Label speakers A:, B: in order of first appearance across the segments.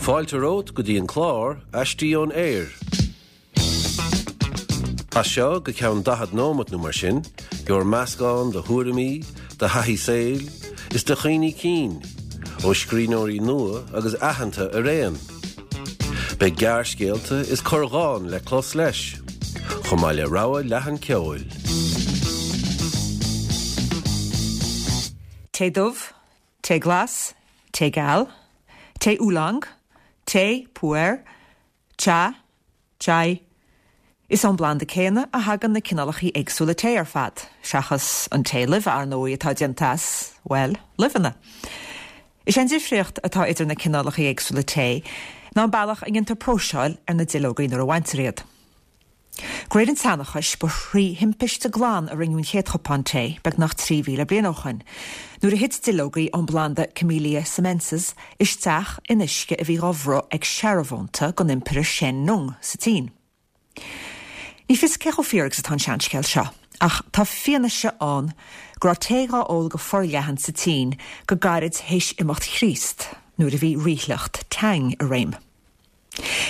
A: Fáilte romhat go dtí an clár Aistí ón Aer. As seo go ceann 40 nóimeat nó mar sin, gheobhair meascán de thuairimí, de thaithí saoil, is de chuimhní cinn, ó scríbhneoirí nua agus aitheanta araon. Beidh gearrscéalta is corrdhán le clos leis, chomh maith le rogha leathan ceoil.
B: Tae dubh, tae glas, tae geal, tae oolong, tae pu-erh, cha, chai. Is ón bplanda céanna a thagann na cineálacha éagsúla tae ar fad, seachas an tae luibhe, ar ndóigh, atá déanta as, bhuel, luibheanna. Is é an difríocht atá idir na cineálacha éagsúla tae ná an bealach a ndéantar próiseáil ar na duilleogaí nuair a bhaintear iad. De réir an tseanchais, ba thrí thimpiste glan a rinneadh an chéad chupán tae, beagnach 3,000 bliain ó shoin, nuair a thit duilleogaí ón bplanda Camellia sinensis isteach in uisce a bhí dhá bhruth ag searbhónta den Impire Shen Nung sa tSín. Ní fios cé chomh fíor agus atá an seanscéal seo, ach tá fianaise ann go raibh tae dhá ól go forleathan sa tSín go gairid théis imeacht Chríost, nuair a bhí ríshliocht Tang i réim.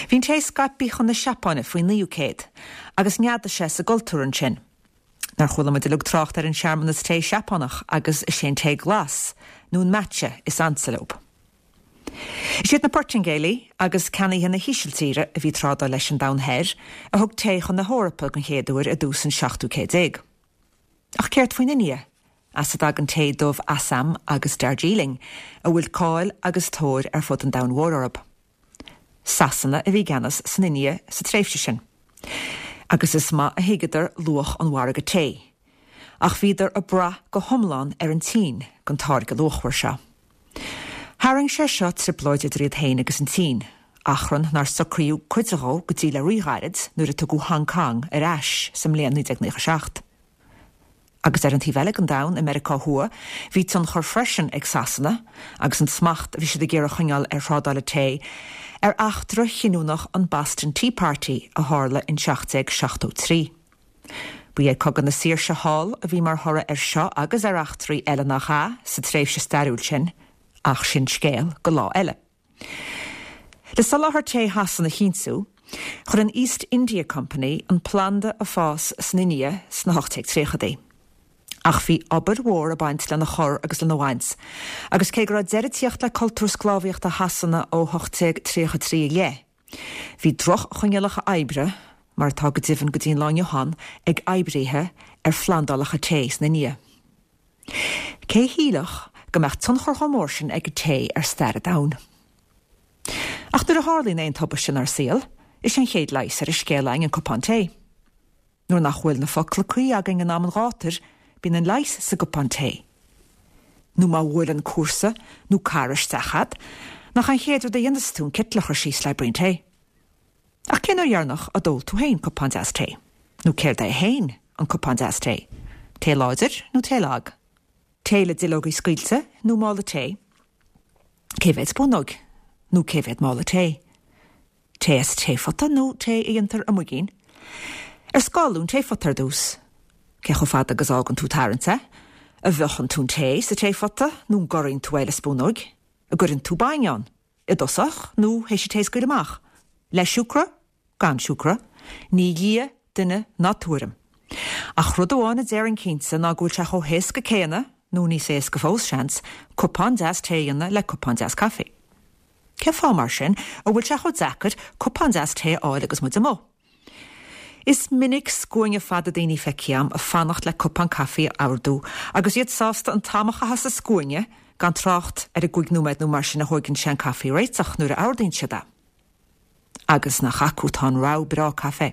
B: Bhí an tae scaipthe chun na Seapáine faoin 9ú céad, agus neadaigh sé sa gcultúr ansin. Nár chuala muid uilig trácht ar an searmanas tae Seapánach agus is é an tae glas, nó an matcha, is ansa leo. Is iad na Portaingéalaigh agus ceannaithe na hÍsiltíre a bhí ag trádáil leis an Domhan Thoir a thug tae chun na hEorpa den chéad uair i dtús an 17ú céad. Ach céard faoin India, as a dtagann tae dubh Assam agus Darjeeling, a bhfuil cáil agus tóir ar fud an domhain mhóir orthu? Sasana a bhí i gceannas san India sa tréimhse sin, agus is maith a thuigeadar luach an mhargaidh tae, ach bhíodar ag brath go hiomlán ar an tSín don táirge luachmhar seo. Tharraing sé seo trioblóid idir iad féin agus an tSín, achrann nár socraíodh cuid dhó go dtí le ríghairid nuair a tugadh Hong Kong ar ais sa mbliain 1997. Agus ar an taobh eile den domhan, i Meiriceá Thuaidh, bhí tionchar freisin ag Sasana, agus an smacht a bhí siad ag iarraidh a choinneáil ar thrádáil an tae, ar eachtra chinniúnach an Boston Tea Party a tharla in 1773. Ba é Cogadh na Saoirse thall a bhí mar thoradh air seo agus ar eachtraí eile nach ea, sa tréimhse stairiúil sin, ach sin scéal go lá eile. Le soláthar tae Shasana a chinntiú, chuir an East India Company an planda ag fás san India sna 1830idí. Ach bhí obair mhór ag baint lena chur agus lena bhaint, agus cé go raibh deireadh ag tíocht le cultúr sclábhaíochta Shasana ó 1833 i leith, bhí droch-choinníollacha oibre, mar atá go deimhin go dtí an lá inniu ann, ag oibríthe ar phlandálacha tae san India. Cé a shílfeadh go mbeadh tionchar chomh mór sin ag an tae ar stair an domhain? Ach nuair a tharlaíonn aon tubaiste inár saol, is é an chéad leigheas ar an scéal againn an cupán tae. Nuair nach bhfuil na focla cuí againn in am an ghátair, bíonn an leigheas sa gcupán tae. Nó má bhuaileann cúrsa nó cara isteach a'd, nach an chéad rud a dhéanas tú an citeal a chur síos le braon tae? Ach cén uair dheireanach a d'ól tú féin cupán deas tae? Nó céard é féin an cupán deas tae? Tae láidir nó tae lag? Tae le duilleogaí scaoilte nó mála tae? Cé mhéad spúnóg nó cé mhéad mála tae? Tae as taephota nó tae a dhéantar i muigín? Ar scáladh an taephota ar dtús? Cé chomh fada agus a fhágann tú ag tarraingt é? An bhfiuchann tú an tae sa taephota nó an gcorraíonn tú é le spúnóig? An gcuireann tú bainne ann? I dtosach nó théis an tae a scaoileadh amach? Le siúcra? Gan siúcra? Ní lia duine ná tuairim. Ach rud amháin a déarfainn cinnte ná go bhfuil sé chomh héasca céanna, nó níos éasca fós, seans, cupán deas tae a dhéanamh le cupán deas caife. Cén fáth, mar sin, a bhfuil sé chomh deacair cupán deas tae a fháil agus muid amuigh? Is minic scuaine fada daoine feicthe a'm ag fanacht le cupán caife a ordú agus iad sásta an t-am a chaitheamh sa scuaine, gan trácht ar an gcúig nóiméad nó mar sin a thóigeann sé an caife a réiteach nuair a ordaíonn siad é. Agus nach acu atá an rogha breá caife?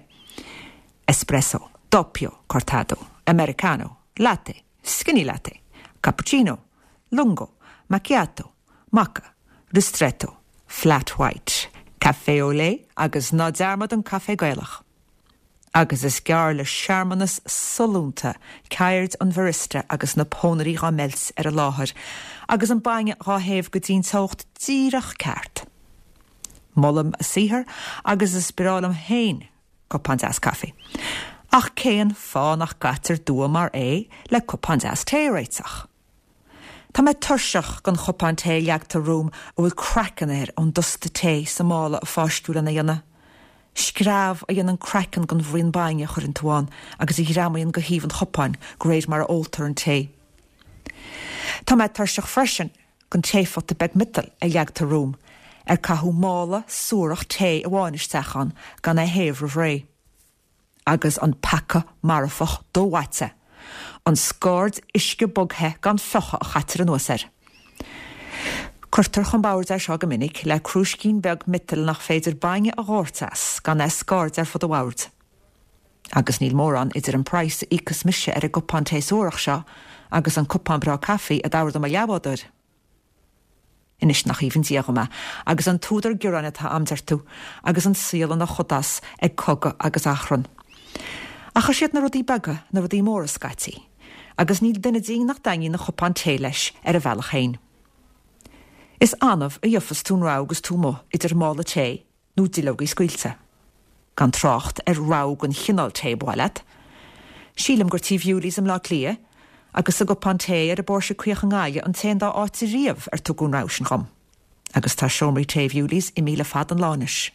B: Espresso, doppio, cortado, americano, latte, skinny latte, cappuccino, lungo, macchiato, Mocha, Ristretto, Flat White, Café au lait agus ná dearmad an caife Gaelach. Agus is gearr le searmanas sollúnta ceird an bharista agus na pónairí dhá meilt ar an láthair agus an bainne dhá théamh go dtí'n teocht díreach ceart. Molaim a saothar agus is breá liom féin cupán deas caife. Ach cén fáth nach gcaitear dua mar é le cupán deas tae a réiteach? Tá mé tuirseach den chupán tae a leagtar romham a bhfuil craiceann air ón dusta tae sa mála a fáisceadh lena dhéanamh. Screamh a dhéanann craiceann den bhraon bainne a chuireann tú ann agus a ghreamaíonn go thaobh an chupáin de réir mar a óltar an tae. Tá mé tuirseach freisin den taephota beag miotail a leagtar romham, ar caitheadh mála suarach tae amháin isteach ann gan é a théamh roimh ré. Agus an peaca marfach domhaite, an scaird uisce bog-the gan fiuchadh a chaitear anuas air. Cuirtear chun boird é seo go minic le crúiscín beag miotail nach féidir bainne a dhóirt as gan é a scairdeadh ar fud an bhoird. Agus níl mórán idir an praghas a íocfas mise ar an gcupán tae suarach seo agus an cupán breá caife a d'ordaigh mo leathbhádóir. Anois nach aoibhinn Dia dhom é, agus an t-údar gearáin atá a'm, deir tú, agus an saol ina chodás ag cogadh agus achrann. Ach is iad na rudaí beaga na rudaí móra scaití, agus níl duine dínn nach dtaitníonn a chupán tae leis ar a bhealach féin. Is annamh a gheofas tú an rogha agus tú amuigh idir mála tae nó duilleogaí scaoilte. Gan trácht ar rogha den chineál tae ba mhaith leat. Sílim gur tí Bhewley's i mBleá Cliath agus sa gcupán tae ar an bPóirse Caoch i nGaillimh an t-aon dá áit riamh ar tugadh an rogha sin dhom. Agus tá seomraí tae Bhewley's imithe le fada an lá anois.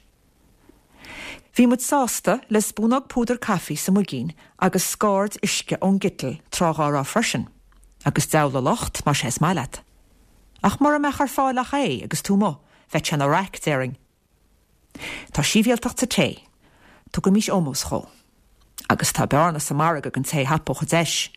B: Bhí muid sásta le spúnóg púdar caife sa muigín agus scaird uisce ón gciteal tráth dhá raibh freisin. Agus deabhal a locht más é is maith leat. Ach mura mbeadh ar fáil ach é agus tú amuigh, bheadh sé ina raic, déarfainn. Tá sibhialtacht sa tae. Tugaimís ómós dhó. Agus tá bearna sa margadh don té a thapódh an deis.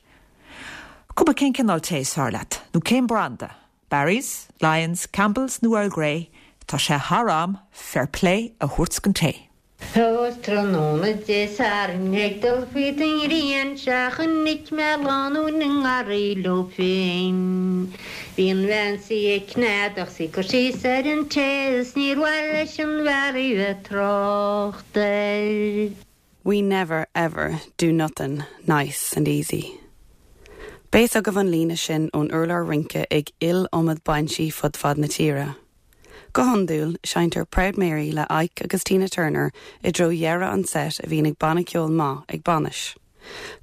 B: Cuma cén cineál tae is fearr leat, nó cén branda, Barry's, Lyons, Campbell's nó Earl Grey, tá sé thar am fair play a thabhairt don tae.
C: Is tráthnóna Dé Sathairn ag dul fríd an ghrian 'sea chonaic mé lánúin i ngarraí leo féin. Bhí an bhean 's í ag cneadach 's í ag cur síos ar an tae is níor mhaith leis an bhfear í bheith trácht air.
D: We never ever do nothin' nice and easy. Beidh a fhios agaibh an líne sin ón urlár rince ag iliomad bainsí fud fad na tíre. Go hiondúil, seinntear Proud Mary le Ike agus Tina Turner i dtreo dheireadh an set a bhíonn ag banna ceoil maith ag bainis.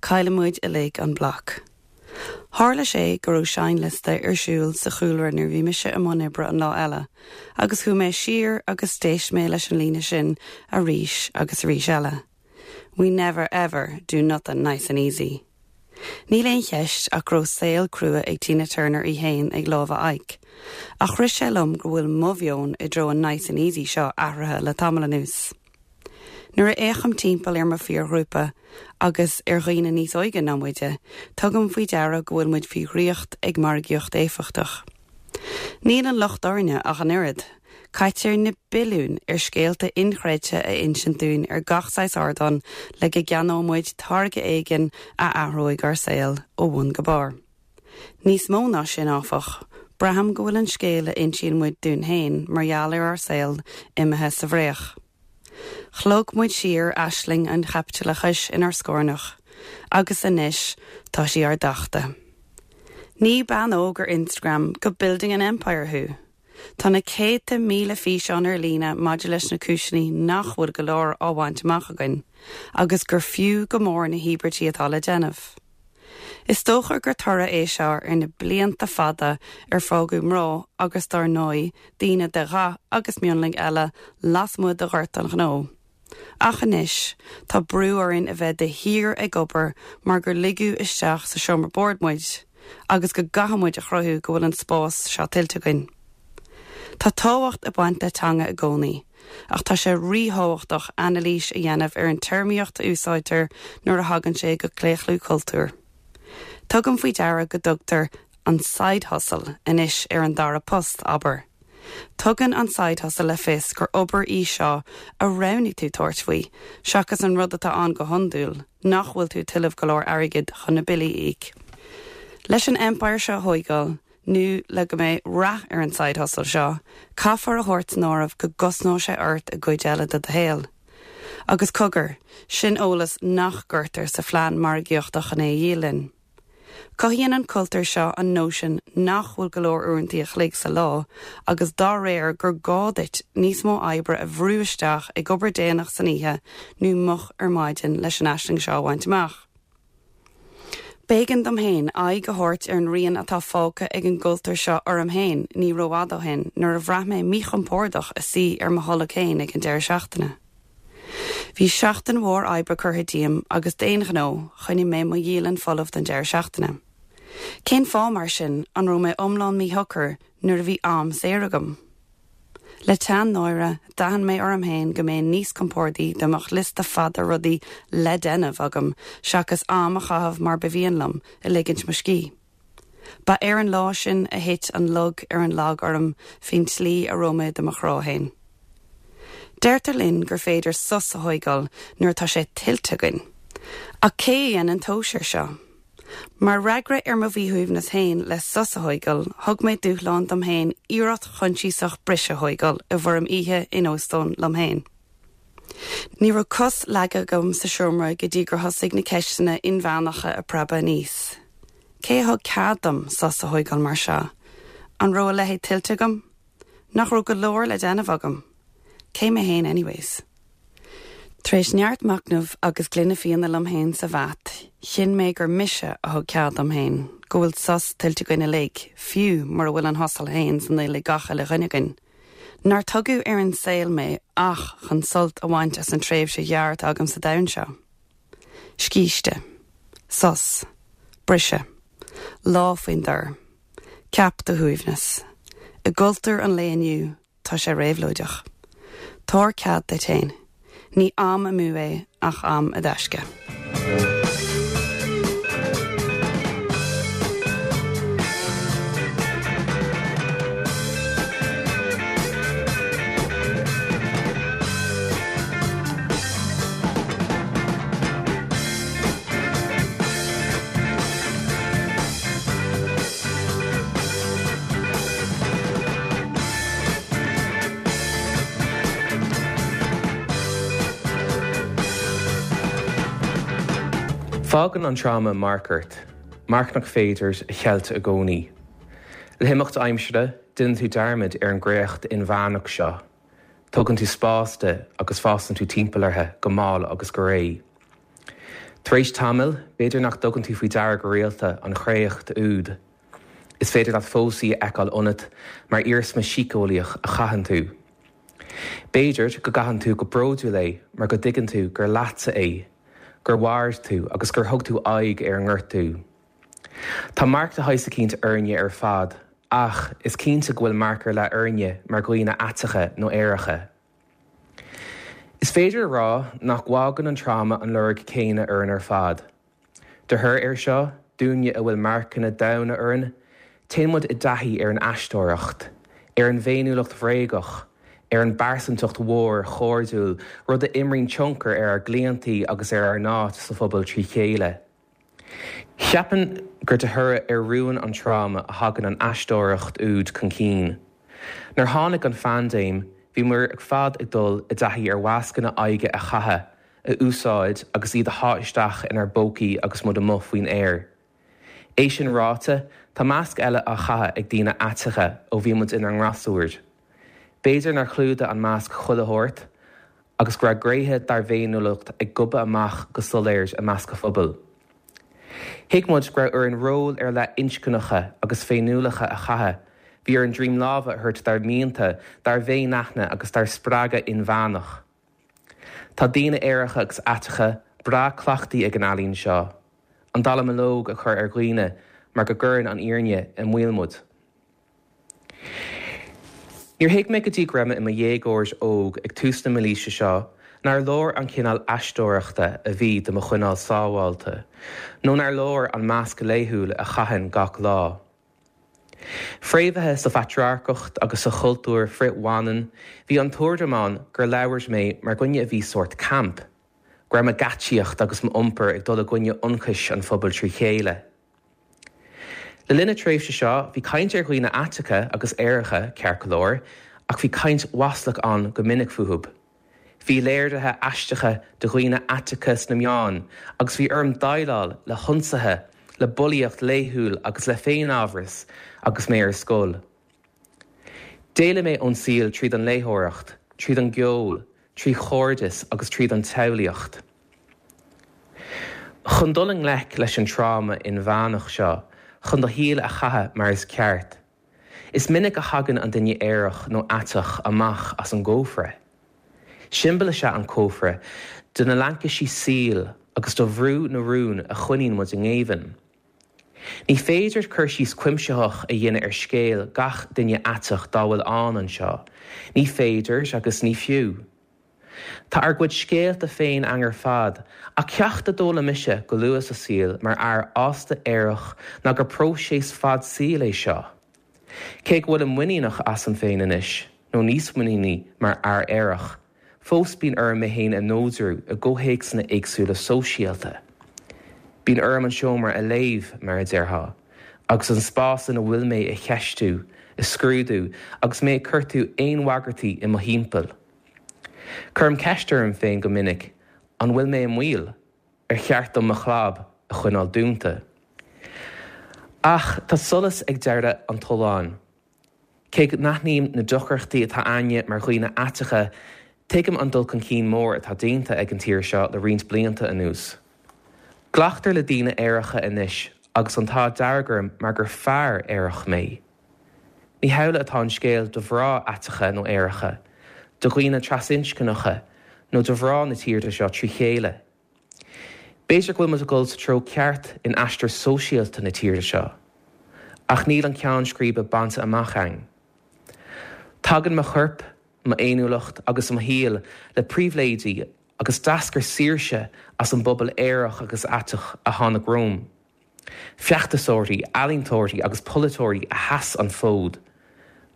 D: Cailleann muid uilig an bloc. Tharla sé go raibh seinnliosta ar siúl sa chúlra nuair bhí mise i mbun oibre an lá eile, agus chuaigh mé siar agus d'éist mé leis an líne sin arís agus arís eile. We never ever do nothin' nice and easy. Níl aon cheist ach go raibh saol crua ag Tina Turner í fhéin ag lámha Ike. Ach rith sé liom go bhfuil mo mheon i dtreo an nice and easy seo athraithe le tamall anuas. Nuair a fhéachaim timpeall ar mo phiarghrúpa, agus ar dhaoine níos óige ná muide, tugaim faoi deara go bhfuil muid faoi dhraíocht ag margaíocht éifeachtach. Níl an locht orainne ach an oiread. Caitear na billiúin ar scéalta inchreidte a insint dúinn ar gach saghas ardán le go gceannóidh muid táirge éigin a athróidh ár saol ó bhun go barr. Níos mó ná sin, áfach, braithim go bhfuil an scéal a insíonn muid dúinn féin mar gheall ar ár saol imithe sa bhfraoch. Shlog muid siar aisling an chaipitileachais inár scornach, agus anois tá sí ár dtachtadh. Ní bean óg ar Instagram go building an empire thú! Tá na céadta míle físeán ar líne maidir leis na cúiseanna nach bhfuil go leor á bhaint amach againn, agus gur fiú go mór na híobairtí atá le déanamh. Is dócha gur toradh é seo ar na blianta fada ar fágadh mná agus dár ndóigh daoine de dhath agus mionlaigh eile lasmuigh de ghort an ghnó. Ach anois, tá brú orainn a bheith de shíor ag obair mar gur ligeadh isteach sa seomra boird muid agus go gcaithfidh muid a chruthú go bhfuil an spás seo tuillte againn. Tá tábhacht ag baint le teanga i gcónaí, ach tá sé ríthábhachtach anailís a dhéanamh ar an téarmaíocht a úsáidtear nuair a thagann sé go claochlú cultúir. Tugaim faoi deara go dtugtar an side hustle anois ar an dara post, abair. Tugann an side hustle le fios gur obair í seo a roghnaigh tú tabhairt faoi, seachas an rud atá ann go hiondúil, nach bhfuil tú ag tuilleamh go leor airgid chun na billí a íoc. Leis an empire seo a thóigeáil, nó le go mbeidh rath ar an side hustle seo, caithfear a thabhairt san áireamh go gcosnóidh sé ort i gcuid eile de do shaol. Agus cogar, sin eolas nach gcuirtear sa phlean margaíochta chun é a dhíol linn. Cothaíonn an cultúr seo an nóisean nach bhfuil go leor uaireanta a chloig sa lá agus dá réir gur gá duit níos mó oibre a bhrú isteach ag obair déanach san oíche nó moch ar maidin leis an aisling seo a bhaint amach. B'éigean dom féin aghaidh a thabhairt ar an rian atá fágtha ag an gcultúr seo orm féin ní rófhada ó shin nuair a bhraith mé míchompordach i suí ar mo tholg féin ag an deireadh seachtaine. Bhí seachtain mhór oibre curtha díom agus d'aon ghnó, choinnigh mé mo dhialann folamh don deireadh seachtaine. Cén fáth, mar sin, an raibh mé iomlán míshocair nuair a bhí am saor agam? Le teann náire, d'aithin mé orm féin go mbeinn níos compordaí dá mbeadh liosta fada rudaí le déanamh agam seachas am a chaitheamh mar ba mhian liom, ag ligint mo scíth. Ba ar an lá sin a thit an lug ar an lag orm faoin tslí a raibh mé do mo chrá féin. Deirtear linn gur féidir sos a thóigeáil nuair atá sé tuillte againn. Ach cé a dhéanann tomhas air seo? Mar fhreagra ar mo mhíshuaimhneas féin le sos a thóigeáil, thug mé dúshlán dom féin iarracht choinsiasach briseadh a thóigeáil i bhfoirm oíche in óstán liom féin. Ní raibh cos leagtha agam sa seomra go dtí gur thosaigh na ceisteanna inmheánacha ag preabadh aníos. Cé a thug cead dom sos a thóigeáil mar seo? An raibh a leithéid tuillte agam? Nach raibh go leor le déanamh agam? Cé mé féin anyways? Tar éis neart machnaimh agus gloine fíona liom féin sa bhat, chinn mé gur mise a thug cead dom féin, go bhfuil sos tuillte againn uilig, fiú mura bhfuil an thusail féin san fhuil ag gach uile dhuine againn. Nár tugadh ar an saol mé ach chun sult a bhaint as an tréimhse ghearr atá agam sa domhan seo. Scíste. Sos. Briseadh. Lá faoin dtor. Ceap do shuaimhneas. I gcultúr an lae inniu, Tá sé réabhlóideach. Tabhair cead duit féin. Ní am amú é ach am i dtaisce.
E: Fágann an tráma marc ort, marc nach féidir a cheilt i gcónaí. Le himeacht aimsire, déanann tú dearmad ar an gcréacht inmheánach seo, tógann tú spás di agus fásann tú timpeall uirthi go mall agus go réidh. Tar éis tamaill, b'fhéidir nach dtugann tú faoi deara go rialta an chréacht úd. Is féidir leat fós í a fheiceáil ionat mar iarsma síceolaíoch a chaitheann tú. B'fhéidir go gcaitheann tú go bródúil é mar go dtuigeann tú gur leatsa é, gur mhair tú agus gur thug tú aghaidh ar an ngortú. Tá marc de shaghas eicínt orainne ar fad ach is cinnte go bhfuil marc ar leith orainne mar dhaoine aiteacha nó aeracha. Is féidir a rá nach bhfágann an tráma an lorg céanna orainn ar fad. De thoradh air seo, dúinne a bhfuil marcanna domhaine orainn, téann muid i dtaithí ar an aisteoireacht, ar an bhféiniúlacht bhréagach, ar an bpearsantacht mhór chairdiúil, rud a imríonn tionchar ar ár gclaontaí agus ar ár n-áit sa phobal trí chéile. Cheapfainn gur de thoradh ar rúin an tráma a thagann an aisteoireacht úd chun cinn. Nuair tháinig an phaindéim, bhí muid ar fad ag dul i dtaithí ar mhascanna aghaidhe a chaitheamh, a úsáid agus iad a shá isteach inár bpócaí agus muid amuigh faoin aer. É sin ráite, tá masc eile á chaitheamh ag daoine aiteacha ó bhí muid inár ngasúir. B'fhéidir nár chlúdaigh an masc chuile shórt agus go raibh gnéithe dár bhféiniúlacht ag gobadh amach go soiléir i measc an phobail. Thuig muid go raibh orainn róil ar leith inscneacha agus féiniúlacha a chaitheamh, bhí orainn droim láimhe a thabhairt dár mianta, dár bhféinaithne agus dár spreagadh inmheánach. Tá daoine aeracha agus aiteacha breá cleachtaithe ag an ealaín seo, an dallamullóg a chur ar dhaoine mar go gcuireann an fhírinne i mbaol muid. Níor thuig mé go dtí go raibh mé i mo dhéagóir óg ag tús na mílaoise seo nár leor an cineál aisteoireachta a bhí do mo choinneáil sábháilte, nó nár leor an masc laethúil a chaithfinn gach lá. Fréamhaithe sa phatrarcacht agus sa chultúr frith-bhaineann, bhí an tuairim ann gur labhair mé mar dhuine a bhí sórt camp, go raibh mo gheaitsíocht agus m'iompar ag dul i gcoinne ionchais an phobail trí chéile. Le linn na tréimhse seo, bhí caint ar dhaoine aiteacha agus aeracha, ceart go leor, ach bhí caint mhaslach ann go minic fúthu. Bhí léirithe aisteacha de dhaoine aiteacha sna meáin agus bhí orm déileáil le hionsaithe, le bulaíocht laethúil agus le féinamhras agus mé ar scoil. D'éalaigh mé ón saol tríd an léitheoireacht, tríd an gceol, trí chairdeas agus tríd an tsamhlaíocht. Chun dul i ngleic leis an tráma inmheánach seo, chun do shaol a chaitheamh mar is ceart, is minic a thagann an duine aerach nó aiteach amach as an gcófra. Siombail is ea an cófra de na laincisí saoil agus do bhrú na rún a choinníonn muid i ngéibheann. Ní féidir cur síos cuimsitheach a dhéanamh ar scéal gach duine aiteach dá bhfuil ann anseo, ní féidir agus ní fiú. Tá ár gcuid scéalta féin againn ar fad, ach ceacht a d'fhoghlaim mise go luath sa saol mar fhear fásta aerach ná gur próiseas fad saoil é seo. Cé go bhfuilim muiníneach asam féin anois, nó níos muiníní mar fhear aerach, fós bíonn orm mé féin a neodrú i gcomhthéacsanna éagsúla sóisialta. Bíonn orm an seomra a léamh, mar a déarfá, agus an spás ina bhfuil mé a cheistiú, a scrúdú agus mé ag cuartú aon bhagairtí i mo thimpeall. Cuirim ceist orm féin go minic, an bhfuil mé i mbaol? Ar cheart dom mo chlab a choinneáil dúnta? Ach tá solas ag deireadh an tolláin. Cé go n-aithním na deacrachtaí atá againne mar dhaoine aiteacha, tuigim an dul chun cinn mór atá déanta ag an tír seo le roinnt blianta anuas. Glactar le daoine aeracha anois agus an t-ádh dearg orm mar gur fear aerach mé. Ní hamhlaidh atá an scéal do mhná aiteacha nó aeracha, do dhaoine trasinscneacha nó do mhná na tíre seo trí chéile. B'fhéidir go bhfuil muid ag dul sa treo ceart in aistear sóisialta na tíre seo, ach níl an ceann scríbe bainte amach againn. Tagann mo chorp, m'fhéiniúlacht agus mo shaol le pribhléidí agus d'eascair saoirse as an bpobal aerach agus aiteach a tháinig romham. Feachtasóirí, ealaíontóirí agus polaiteoirí a sheas an fód.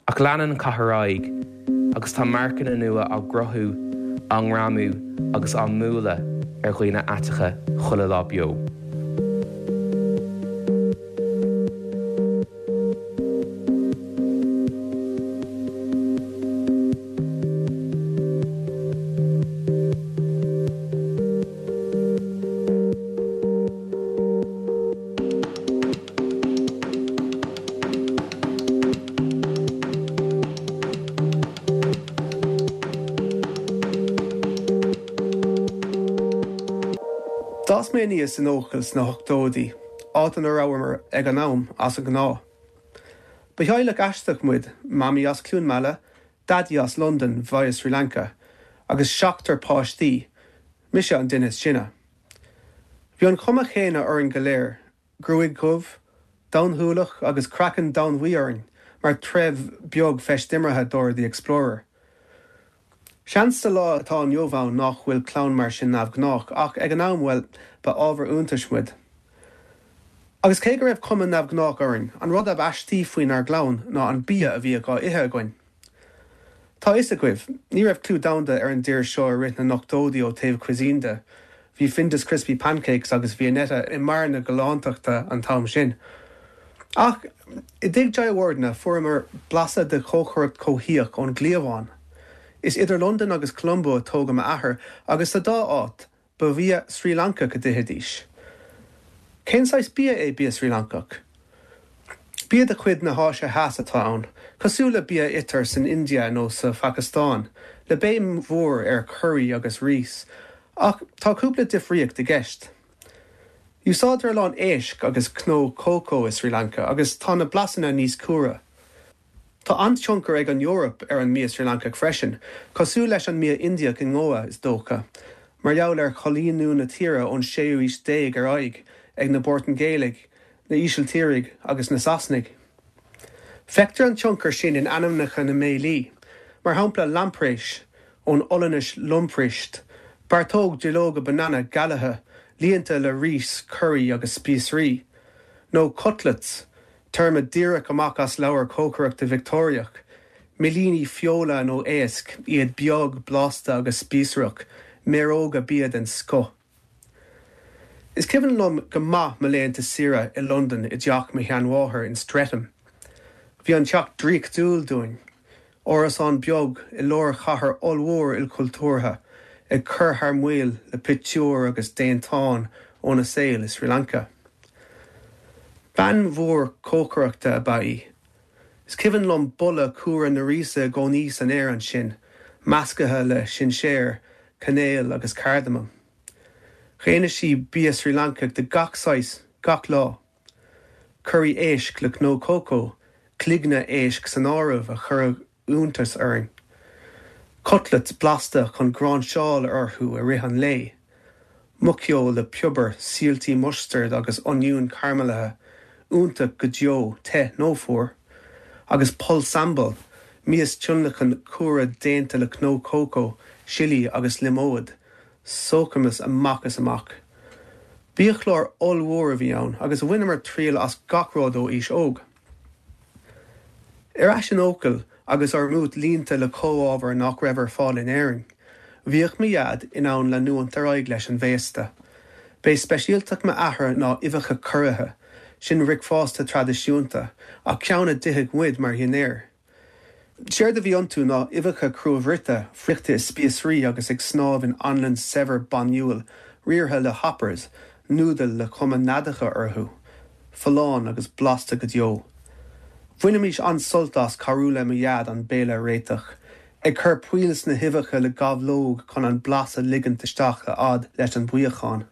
E: Ach leanann an cath ar aghaidh agus tá marcanna nua á gcruthú, á ngreamú agus á mbualadh ar dhaoine aiteacha chuile lá beo.
F: D'fhás mé aníos in Eochaill sna hochtóidí, áit ina rabhamar ag an am as an ngnáth. Ba theaghlach aisteach muid, Mamaí as Cluain Meala, Daidí as Londain via Sri Lanka, agus seachtar páistí, mise an duine is sine. Bhí an chuma chéanna orainn go léir, gruaig dhubh, donn-shúileach agus craiceann domhainbhuí orainn mar threibh beag feistimeartha Dora the Explorer. Seans sa lá atá inniu ann nach bhfuil clann mar sin neamhghnách ach ag an am, bhuel, ba ábhar iontais muid. Agus cé go raibh cuma neamhghnách orainn, an rud ab aistí faoinár gclann ná an bia a bhíodh á ithe againn. Tá a fhios agaibh, ní raibh clú domhanda ar an dtír seo i rith na n-ochtóidí ó taobh cuisine de. Bhí Findus Crispy Pancakes agus Viennetta i mbarr na galántachta an t-am sin. Ach i dtigh Jayawardene fuaireamar blaiseadh de chócaireacht chomhthíoch ón gcliabhán. Is idir Londain agus Colombo a tógadh m'athair agus sa dá áit, Ba bhia Srí Lancach a d'ithidís. Cén saghas bia é bia Srí Lancach? Bia de chuid na hÁise Theas atá ann, cosúil le bia a itear san India nó sa Phacastáin, le béim mhór ar churraí agus rís, ach tá cúpla difríocht i gceist. Úsáidtear a lán éisc agus cnó cócó i Srí Lanca agus tá na blasanna níos cumhra. Tá an-tionchar ag an Eoraip ar an mbia Srí Lancach freisin, cosúil leis an mbia Indiach i nGoa, is dócha, mar gheall ar choilíniú na tíre ón séú aois déag ar aghaidh ag na Portaingéalaigh, na hÍsiltírigh agus na Sasanaigh. Feictear an tionchar sin in ainmneacha na mbéilí, mar shampla lamprais, ón Ollainnis lamproest, beartóg duilleoga banana galaithe líonta le rís, curaí agus spíosraí, nó cutlets, Téarma díreach amach as leabhar cócaireachta Victeoiriach, millíní feola nó éisc, iad beag, blasta agus spíosrach, méaróga bia den scoth. Is cuimhin liom go maith mo laethanta saoire i Londain i dteach mo sheanmháthar in Streatham. Bhí an teach draíochtúil dúinn. Árasán beag i lár chathair ollmhór ilchultúrtha, ag cur thar maoil le pictiúir agus déantáin óna saol i Sri Lanka. Bean mhór cócaireachta ab ea í. Is cuimhin liom boladh cumhra na ríse i gcónaí san aer ansin, measctha le sinséar, cainéal agus cardamam. Dhéanadh sí bia Srí Lancach de gach saghas, gach lá. Curaí éisc le cnó cócó, cloigne éisc san áireamh a chuireadh iontas orainn. Cutlets blasta chun gráinseáil orthu i rith an lae. Muiceoil le piobar, síoltaí mustaird agus oinniún caraimilithe, iontach go deo, te nó fuar. Agus pol sambal, mias tionlacan cumhra déanta le cnó cócó, sillí agus liomóid, sócamas amach is amach. Biachlár ollmhór a bhí ann agus bhaineamar triail as gach rud ó aois óg. Ar ais in Eochaill agus ár mbúit líonta le comhábhair nach raibh ar fáil in Éirinn, bhíodh mo Dhaid in ann leanúint ar aghaidh leis an bhféasta. B'é speisialtacht m'athar ná uibheacha curaithe, sin bricfeasta traidisiúnta, ach ceann a d'itheadh muid mar dhinnéar. Séard a bhí iontu ná uibheacha cruabhruite, friochta i spíosraí agus ag snámh in anlann saibhir bainniúil, riartha le hoppers, núdail le cuma neadacha orthu. Folláin agus blasta go deo. Bhainimis an-sult as cabhrú le mo Dhaid an béile a réiteach, ag cur poill sna huibheacha le gabhlóg chun an blas a ligint isteach a fhad leis an mbuíochán.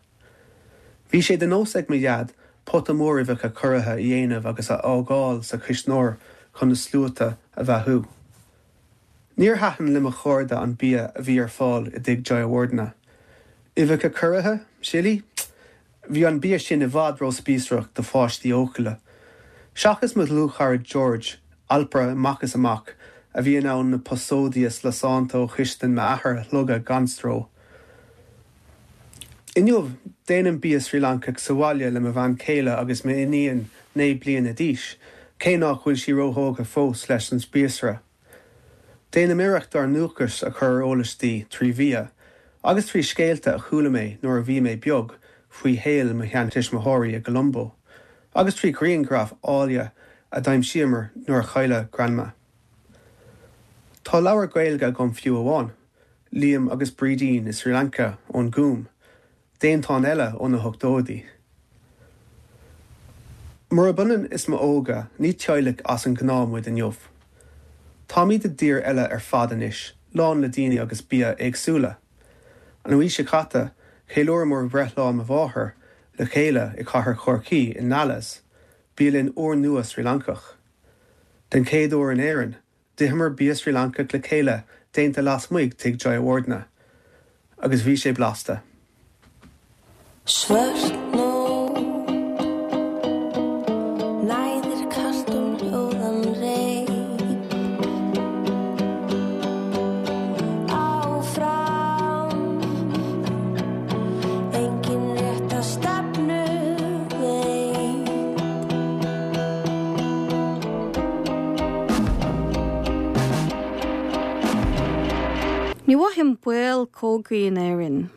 F: Bhí sé de nós ag mo Dhaid pota mór uibheacha curaithe a dhéanamh agus a fhágáil sa chuisneoir chun na sluaite a bheathú. Níor thaitin le mo chairde an bia a bhí ar fáil i dtigh Jayawardena. Uibheacha curaithe? Sillí? Bhí an bia sin i bhfad róspíosrach do pháistí Eochaille. Seachas mo dhlúthchara George, alpaire amach is amach, a bhí in ann na posóidí lasánta ó chistin m'athar a shlogadh gan stró. Inniu, déanaim bia Srí Lancach sa bhaile le mo bhean chéile agus m'iníon 9 bliana d'aois, cé nach bhfuil sí róthógtha fós leis an spíosra. Déanaim iarracht ár ndúchas a chur ar eolas di trí bhia, agus trí scéalta a chuala mé nuair a bhí mé beag faoi shaol mo sheantuismitheoirí i gColombo, agus trí ghrianghraif áille a d'aimsíomar nuair a cailleadh Grandma. Tá leabhar Gaeilge agam fiú amháin. Liam agus Brídín i Sri Lanka ón Gúm, déantán eile ó na hochtóidí. Murab ionann is m'óige, ní teaghlach as an ngnáth muid inniu. Táimid i dtír eile ar fad anois, lán le daoine agus bia éagsúla. An mhí seo caite, cheiliúramar breithlá mo mháthar le chéile i gcathair Chorcaí i Nala's, bialann úrnua Srí Lancach. Den chéad uair in Éirinn, D'itheamar bia Srí Lancach le chéile déanta lasmuigh tigh Jayawardena. Agus bhí sé blasta.
G: Svört nótt Næðir kalt um hljóðan reit Áfram Enginn rétta stefnu veit
D: Ní mhothaím baol cogaidh in Éirinn.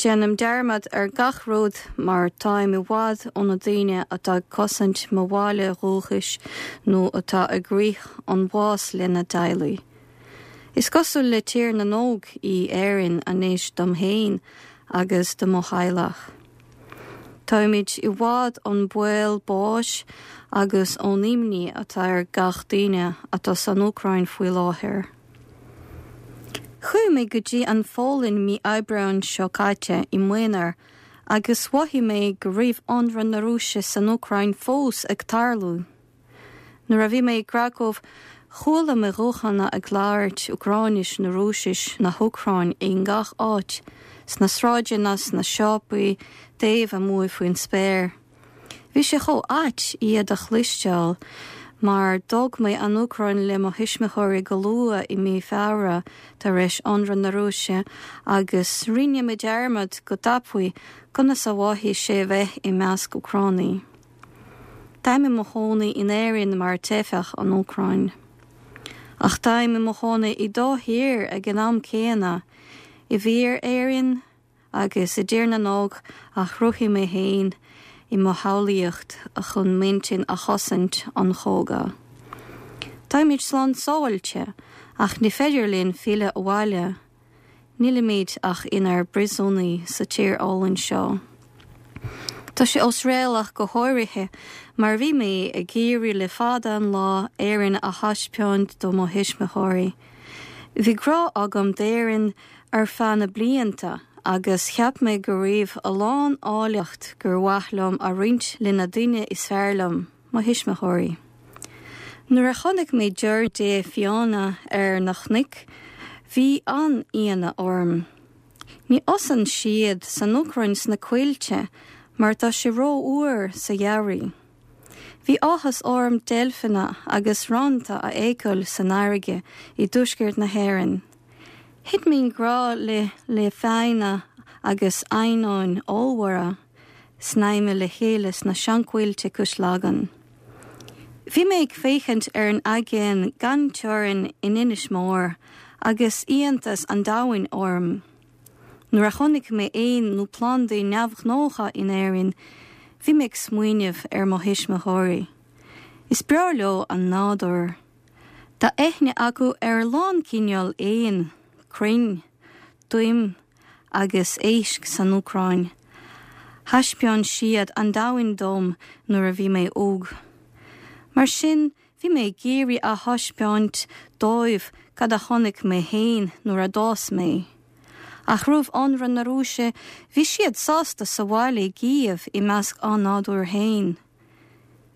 D: Déanaim dearmad ar gach rud mar táim i bhfad ó na daoine atá ag cosaint mo bhaile dhúchais nó atá ag rith an bhás lena dteaghlaigh. Is cosúil le Tír na nÓg í Éirinn anois dom féin agus do mo theaghlach. Táimid i bhfad ón baol báis agus ón imní atá ar gach duine atá san Úcráin faoi láthair. Chuaigh mé go dtí an Pholainn mí Aibreáin seo caite i m'aonar agus mhothaigh mé go raibh ionradh na Rúise san Úcráin fós ag tarlú. Nuair a bhí mé i gCracow, chuala mé guthanna ag labhairt Úcráinis nó Rúisis na hÚcráin i ngach áit, sna sráideanna, sna siopaí, taobh amuigh faoin spéir. Bhí sé chomh ait iad a chloisteáil, mar d'fhág mé an Úcráin le mo thuismitheoirí go luath i mí Feabhra tar éis ionradh na Rúise agus rinne mé dearmad go tapaidh conas a mhothaigh sé bheith i measc Úcránaigh. Táim i mo chónaí in Éirinn mar teifeach ón Úcráin. Ach táim i mo chónaí i dá thír ag an am céanna, i bhfíor-Éirinn agus i dTír na nÓg a chruthaigh mé féin i mo shamhlaíocht chun m'intinn a chosaint ón chogadh. Táimid slán sábháilte, ach ní féidir linn filleadh abhaile. Nílimid ach inár bpríosúnaigh sa tír álainn seo. Tá sé osréalach go háirithe mar bhí mé ag iarraidh le fada an lá Éirinn a thaispeáint do mo thuismitheoirí. Bhí grá agam d'Éirinn ar feadh na blianta. agus cheap mé go raibh a lán áilleacht gur mhaith liom a roinnt le na daoine is fearr liom, mo thuismitheoirí. Nuair a chonaic mé deoir dé fiáine ar na cnoic, bhí an-ionadh orm. Ní fhásann siad san Úcráin sna coillte mar tá sé rófhuar sa gheimhreadh. Bhí áthas orm deilfeanna agus rannta a fheiceáil san fharraige i dtuaisceart na hÉireann. Thit mé i ngrá le le fianna agus eidhneáin ollmhóra snaidhmthe le chéile sna seanchoillte cois Lagan. Bhí mé ag féachaint ar an aigéan gan teorainn in Inis Mór agus iontas an domhain orm. Nuair a chonaic mé éin nó plandaí neamhghnácha in Éirinn, bhí mé ag smaoineamh ar mo thuismitheoirí. Is breá leo an nádúr. Tá aithne acu ar a lán cineál éan, crainn, toim agus éisc san Úcráin. Thaispeáin siad an domhan dom nuair a bhí mé óg. Mar sin, bhí mé ag iarraidh a thaispeáint dóibh cad a chonaic mé féin nuair a d'fhás mé. Ach roimh ionradh na Rúise, bhí siad sásta sa bhaile i gCív i measc a nádúir féin.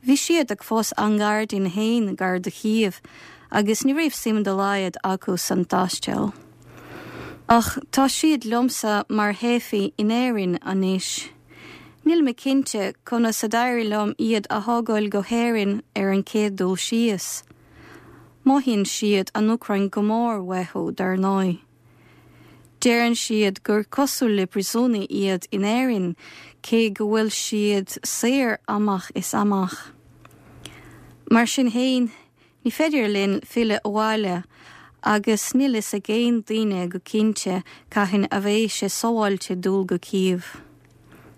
D: Bhí siad ag fás a ngairdín féin gar do Chív agus ní raibh suim dá laghad acu san taisteal. Ach tá siad liomsa mar theifigh in Éirinn anois. Níl mé cinnte conas a d'éirigh liom iad a thógáil go hÉirinn ar an chéad dul síos. Mothaíonn siad an Úcráin go mór uathu, dar ndóigh. Deireann siad gur cosúil le príosúnaigh iad in Éirinn, cé go bhfuil siad saor amach is amach. Mar sin féin, ní féidir linn filleadh abhaile agus níl fhios ag aon duine go cinnte cathain a bheidh sé sábháilte dul go Cív.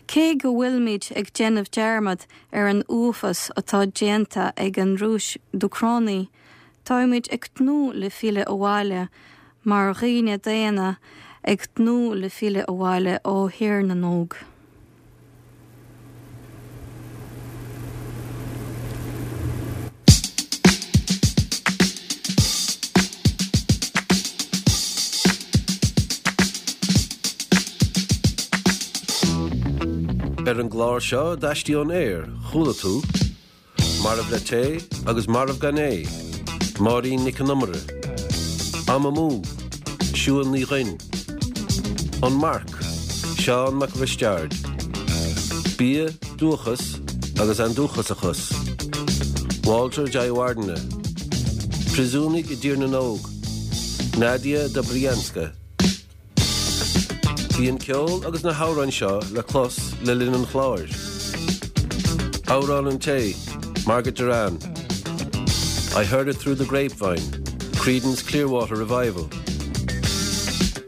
D: Cé go bhfuilimid ag déanamh dearmad ar an uafás atá déanta ag an Rúis d'Úcránaigh, Táimid ag tnúth le filleadh abhaile mar dhaoine daonna ag tnúth le filleadh abhaile ó Thír na nÓg.
A: Ar an gclár seo d'Aistí ón Aer, chuala tú. Marbh le Tae agus Marbh gan é, Máirín Nic an Iomaire, Am Amú, Siún Ní Dhuinn, An Marc, Seán Mac Risteaird, Bia, Dúchas agus Andúchasachas, Walter Jayawardene, Príosúnaigh i dTír na nÓg, Nadia Dobrianska. Bhí an ceol agus na hamhráin seo le clos le linn an chláir. Amhrán an Tae, Margaret Doran, I Heard It Through the Grapevine, Creedence Clearwater Revival,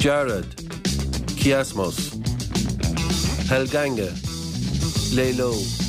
A: Dearad, Kiasmos, Helganga, Lé Leo.